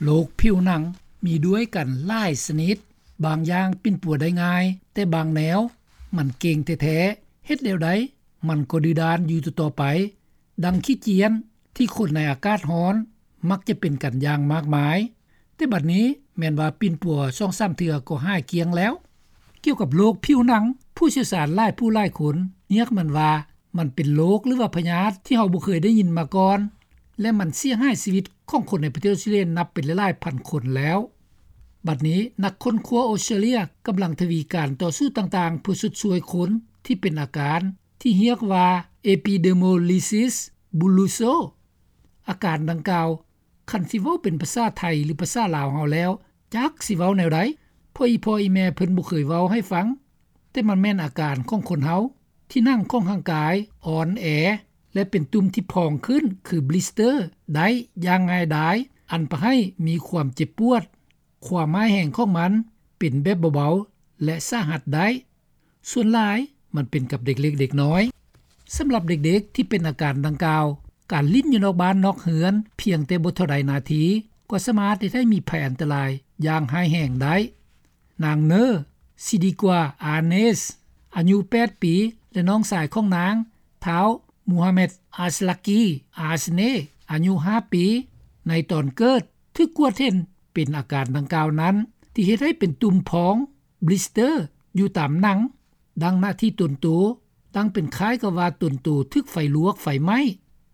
ໂລກຜິວໜັງມີດ້ວຍກັນຫຼາຍຊະນິດ, ບາງຢ່າງປິ່ນປົວໄດ້ງ່າຍ, ແຕ່ບາງແນວມັນເກັ່ງແທ້ໆ, ເຮັດແນວໃດມັນກໍດື້ດ້ານຢູ່ຕໍ່ໆໄປ, ດັ່ງຂີ້ຈຽນທີ່ຄົນໃນອາກາດຮ້ອນມັກຈະເປັນກັນຢ່າງມາກມາຍ. ແຕ່ບັດນີ້ແມ່ນວ່າປິ່ນປົວສອງສາມເທື່ອກໍຫາຍກ້ຽງແລ້ວ. ກ່ຽວກັບໂລກຜິວໜັງ, ຜູ້ຊ່ຽວຊານຫຼາຍຜູ້ຫຼາຍຄົນຮຽກມັນວ່າ ມັນເປັນໂລກ ຫຼືວ່າພະຍາດທີ່ເຮົາບໍ່ເຄີຍໄດ້ຍິນມາກ່ອນ ແລະ ມັນເສຍຫາຍຊີວິດຂອງຄົນໃນປະເທດອອສເຕຣເລຍນັບເປັນຫຼາຍໆພັນຄົນແລ້ວ. ບັດນີ້ນັກຄົ້ນຄວ້າອອສເຕຣເລຍກຳລັງທະວີການຕໍ່ສູ້ຕ່າງໆ ເພື່ອຊົດຊ່ວຍຄົນທີ່ເປັນອາການທີ່ຮຽກວ່າ epidermolysis bullosa. ອາການດັ່ງກ່າວ ຄັນຊິເວົ້າເປັນພາສາໄທ ຫຼື ພາສາລາວເຮົາແລ້ວ ຈັກຊິເວົ້າແນວໃດ, ເພາະອີ່ພໍ່ອີ່ແມ່ເພິ່ນບໍ່ເຄີຍເວົ້າໃຫ້ຟັງ. ແຕ່ມັນແມ່ນອາການຂອງຄົນເຮົາ ທີ່ໜັງຂອງຮ່າງກາຍອ່ອນແອ ແລະ ເປັນຕຸ່ມທີ່ພອງຂຶ້ນ ຄືບລິສເຕີ ໄດ້ຢ່າງງ່າຍດາຍ, ອັນປະໃຫ້ມີຄວາມເຈັບປວດ. ຄວາມຮ້າຍແຮງຂອງມັນເປັນແບບເບົາໆ ແລະ ສາຫັດໄດ້. ສ່ວນຫຼາຍມັນເປັນກັບເດັກເລັກເດັກນ້ອຍ. ສຳລັບເດັກໆທີ່ເປັນອາການດັ່ງກ່າວ, ການຫຼິ້ນຢູ່ນອກບ້ານນອກເຮືອນພຽງແຕ່ບໍ່ເທົ່າໃດນາທີ ກໍສາມາດເຮັດໃຫ້ມີໄພອັນຕະລາຍຢ່າງຮ້າຍແຮງໄດ້. ນາງ ເນີ ຊິດີກວາ ອາເນສ ອາຍຸແປດປີ ແລະ ນ້ອງຊາຍຂອງນາງ ທ້າວ ມູຮາແມັດ ອາສລາກີ ອາສເນ ອາຍຸຫ້າປີ ໃນຕອນເກີດ ຖືກກວດເຫັນເປັນອາການດັ່ງກ່າວນັ້ນ ທີ່ເຮັດໃຫ້ເປັນຕຸ່ມພອງ ບລິສເຕີ ຢູ່ຕາມໜັງ ດັ່ງໜ້າທີ່ຕົນໂຕ, ດັ່ງເປັນຄ້າຍກັບວ່າຕົນໂຕຖືກໄຟລວກໄຟໄໝ້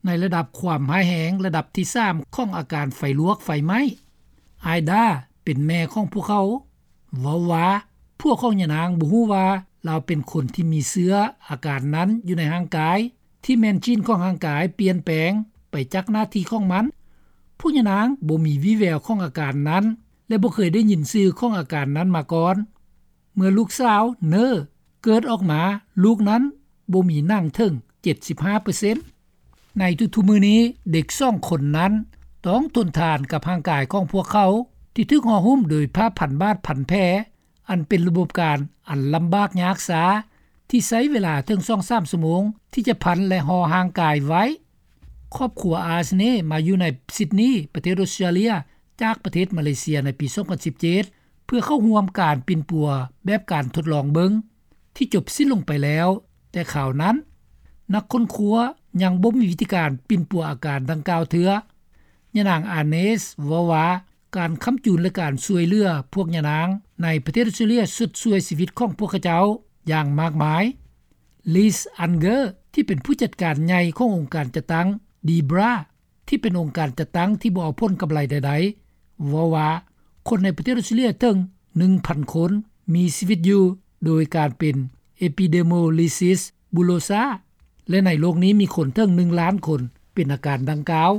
ໃນລະດັບຄວາມຮ້າຍແຮງລະດັບທີສາມຂອງອາການໄຟລວກໄຟໄໝ້. ອາຍດາ ເປັນແມ່ຂອງພວກເຂົາ ເວົ້າວ່າ ຜົວຂອງຍານາງບໍ່ຮູ້ວ່າລາວເປັນຄົນທີ່ມີເຊື້ອອາການນັ້ນຢູ່ໃນຮ່າງກາຍ, ທີ່ແມ່ນຈີນຂອງຮ່າງກາຍປ່ຽນແປງໄປຈາກໜ້າທີ່ຂອງມັນ. ພວກຍານາງບໍ່ມີວີ່ແວວຂອງອາການນັ້ນ ແລະ ບໍ່ເຄີຍໄດ້ຍິນຊື່ຂອງອາການນັ້ນມາກ່ອນ. ເມື່ອລູກສາວ ເນີ ເກີດອອກມາ, ລູກນັ້ນບໍ່ມີໜັງເຖິງເຈັດສິບຫ້າເປີເຊັນ. ໃນທຸກໆມື້ນີ້, ເດັກສອງຄົນນັ້ນຕ້ອງທົນທານກັບຮ່າງກາຍຂອງພວກເຂົາ ທີ່ຖືກຫໍ່ຫຸ້ມໂດຍຜ້າພັນບາດພັນແຜ, ອັນເປັນລະບົບການອັນລຳບາກຍາກຊາ ທີ່ໃຊ້ເວລາເຖິງສອງສາມຊົ່ວໂມງທີ່ຈະພັນ ແລະ ຫໍ່ຮ່າງກາຍໄວ້. ຄອບຄົວ ອາສເນ ມາຢູ່ໃນຊິດນີ ປະເທດອອສເຕຣເລຍ ຈາກປະເທດມາເລເຊຍໃນປີສອງພັນສິບເຈັດ ເພື່ອເຂົ້າຮ່ວມການປິ່ນປົວແບບການທົດລອງເບິ່ງ ທີ່ຈົບສິ້ນລົງໄປແລ້ວ, ແຕ່ຄາວນັ້ນ ນັກຄົ້ນຄວ້າຍັງບໍ່ມີວິທີການປິ່ນປົວອາການດັ່ງກ່າວເທື່ອ. ຍານາງ ອາເນສ ເວົ້າວ່າ ການຄ້ຳຈູນ ແລະ ການຊ່ວຍເຫຼືອພວກຍານາງໃນປະເທດອອສເຕຣເລຍ ຊົດຊ່ວຍຊີວິດຂອງພວກເຂົາເຈົ້າຢ່າງມາກມາຍ. ລີສ ອັນເກີ ທີ່ເປັນຜູ້ຈັດການໃຫຍ່ຂອງອົງການຈັດຕັ້ງ ດີບຣາ ທີ່ເປັນອົງການຈັດຕັ້ງທີ່ບໍ່ເອົາຜົນກຳໄລໃດໆ ເວົ້າວ່າ ຄົນໃນປະເທດອອສເຕຣເລຍເຖິງໜຶ່ງພັນຄົນມີຊີວິດຢູ່ໂດຍການເປັນ epidermolysis bullosa ແລະ ໃນໂລກນີ້ມີຄົນເຖິງໜຶ່ງລ້ານຄົນເປັນອາການດັ່ງກ່າວ.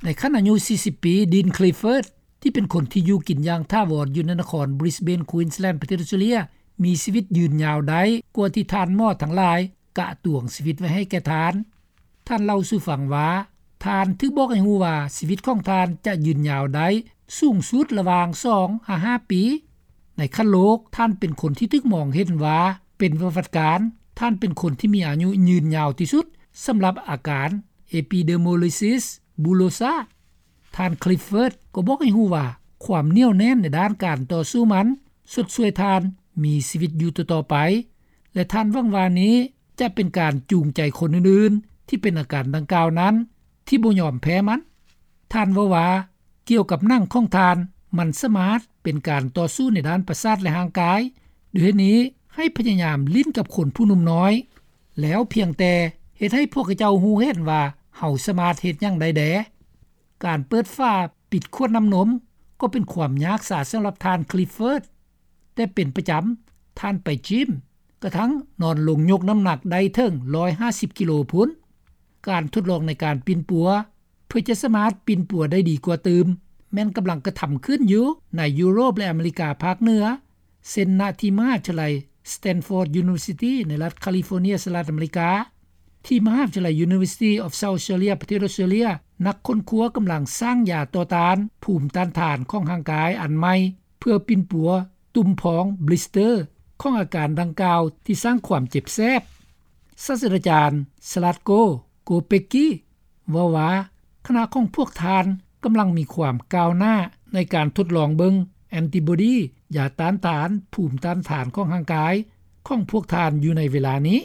ໃນຂັ້ນອາຍຸສີ່ສິບປີ, ດີນ ຄລິຟເຟີດ ທີ່ເປັນຄົນທີ່ຢູ່ກິນຢ່າງຖາວອນຢູ່ໃນນະຄອນບຣິສເບນ ຄວີນສ໌ແລນ ປະເທດອອສເຕຣເລຍ ມີຊີວິດຢືນຍາວໄດ້ກວ່າທີ່ທ່ານໝໍທັງຫຼາຍກະຕວງຊີວິດໄວ້ໃຫ້ແກ່ທ່ານ. ທ່ານເລົ່າສູ່ຟັງວ່າ ທ່ານຖືກບອກໃຫ້ຮູ້ວ່າຊີວິດຂອງທ່ານຈະຢືນຍາວໄດ້ສູງສຸດລະຫວ່າງສອງຫາຫ້າປີ. ໃນຂັ້ນໂລກ, ທ່ານເປັນຄົນທີ່ຖືກມອງເຫັນວ່າເປັນປະຫວັດການ, ທ່ານເປັນຄົນທີ່ມີອາຍຸຢືນຍາວທີ່ສຸດສຳລັບອາການ epidermolysis bullosa. ທ່ານ ຄລິຟເຟີດ ກໍບອກໃຫ້ຮູ້ວ່າ ຄວາມໜຽວແໜ້ນໃນດ້ານການຕໍ່ສູ້ມັນຊົດຊ່ວຍທ່ານມີຊີວິດຢູ່ຕໍ່ໆໄປ ແລະ ທ່ານຫວັງວ່ານີ້ຈະເປັນການຈູງໃຈຄົນອື່ນໆທີ່ເປັນອາການດັ່ງກ່າວນັ້ນ ທີ່ບໍ່ຍອມແພ້ມັນ. ທ່ານເວົ້າວ່າ ກ່ຽວກັບໜັງຂອງທ່ານ, ມັນສາມາດເປັນການຕໍ່ສູ້ໃນດ້ານປະສາດ ແລະ ຮ່າງກາຍ. ດ້ວຍເຫດນີ້, ໃຫ້ພະຍາຍາມຫຼິ້ນກັບຄົນຜູ້ໜຸ່ມນ້ອຍ, ແລ້ວພຽງແຕ່ເຮັດໃຫ້ພວກເຂົາເຈົ້າຮູ້ເຫັນວ່າເຮົາສາມາດເຮັດຫຍັງໄດ້ແດ່. ການເປີດຝາປິດຂວດນ້ຳນົມກໍເປັນຄວາມຍາກສາສຳລັບທ່ານ ຄລິຟເຟີດ, ແຕ່ເປັນປະຈຳ, ທ່ານໄປຈິມ, ກະທັ່ງນອນລົງຍົກນ້ຳໜັກໄດ້ເຖິງຮ້ອຍຫ້າສິບກິໂລພຸ້ນ. ການທົດລອງໃນການປິ່ນປົວ ເພື່ອຈະສາມາດປິ່ນປົວໄດ້ດີກວ່າຕື່ມ ແມ່ນກຳລັງກະທຳຂຶ້ນຢູ່ໃນຢູໂຣບ ແລະ ອາເມລິກາພາກເໜືອ, ເຊັ່ນ ນະທີ່ມະຫາວິທະຍາໄລ Stanford University ໃນລັດຄາລີຟໍເນຍ ສະຫະລັດອາເມລິກາ, ທີ່ມະຫາວິທະຍາໄລ University of South Australia ປະເທດອອສເຕຣເລຍ, ນັກຄົ້ນຄວ້າກຳລັງສ້າງຢາຕໍ່ຕ້ານພູມຕ້ານທານຂອງຮ່າງກາຍອັນໃໝ່ ເພື່ອປິ່ນປົວຕຸ່ມພອງ ບລິສເຕີ ຂອງອາການດັ່ງກ່າວທີ່ສ້າງຄວາມເຈັບແສບ. ສາດສະດາຈານ ສະລັດໂກ ໂກເປກກີ ເວົ້າວ່າ ຄະນະຂອງພວກທ່ານກ ກຳລັງມີຄວາມກ້າວໜ້າ ໃນການທົດລອງເບິ່ງ ແອນຕິບອດີ ຢາຕ້ານທານ ພູມຕ້ານທານ ຂອງຮ່າງກາຍ ຂອງພວກທ່ານຢູ່ໃນເວລານີ້.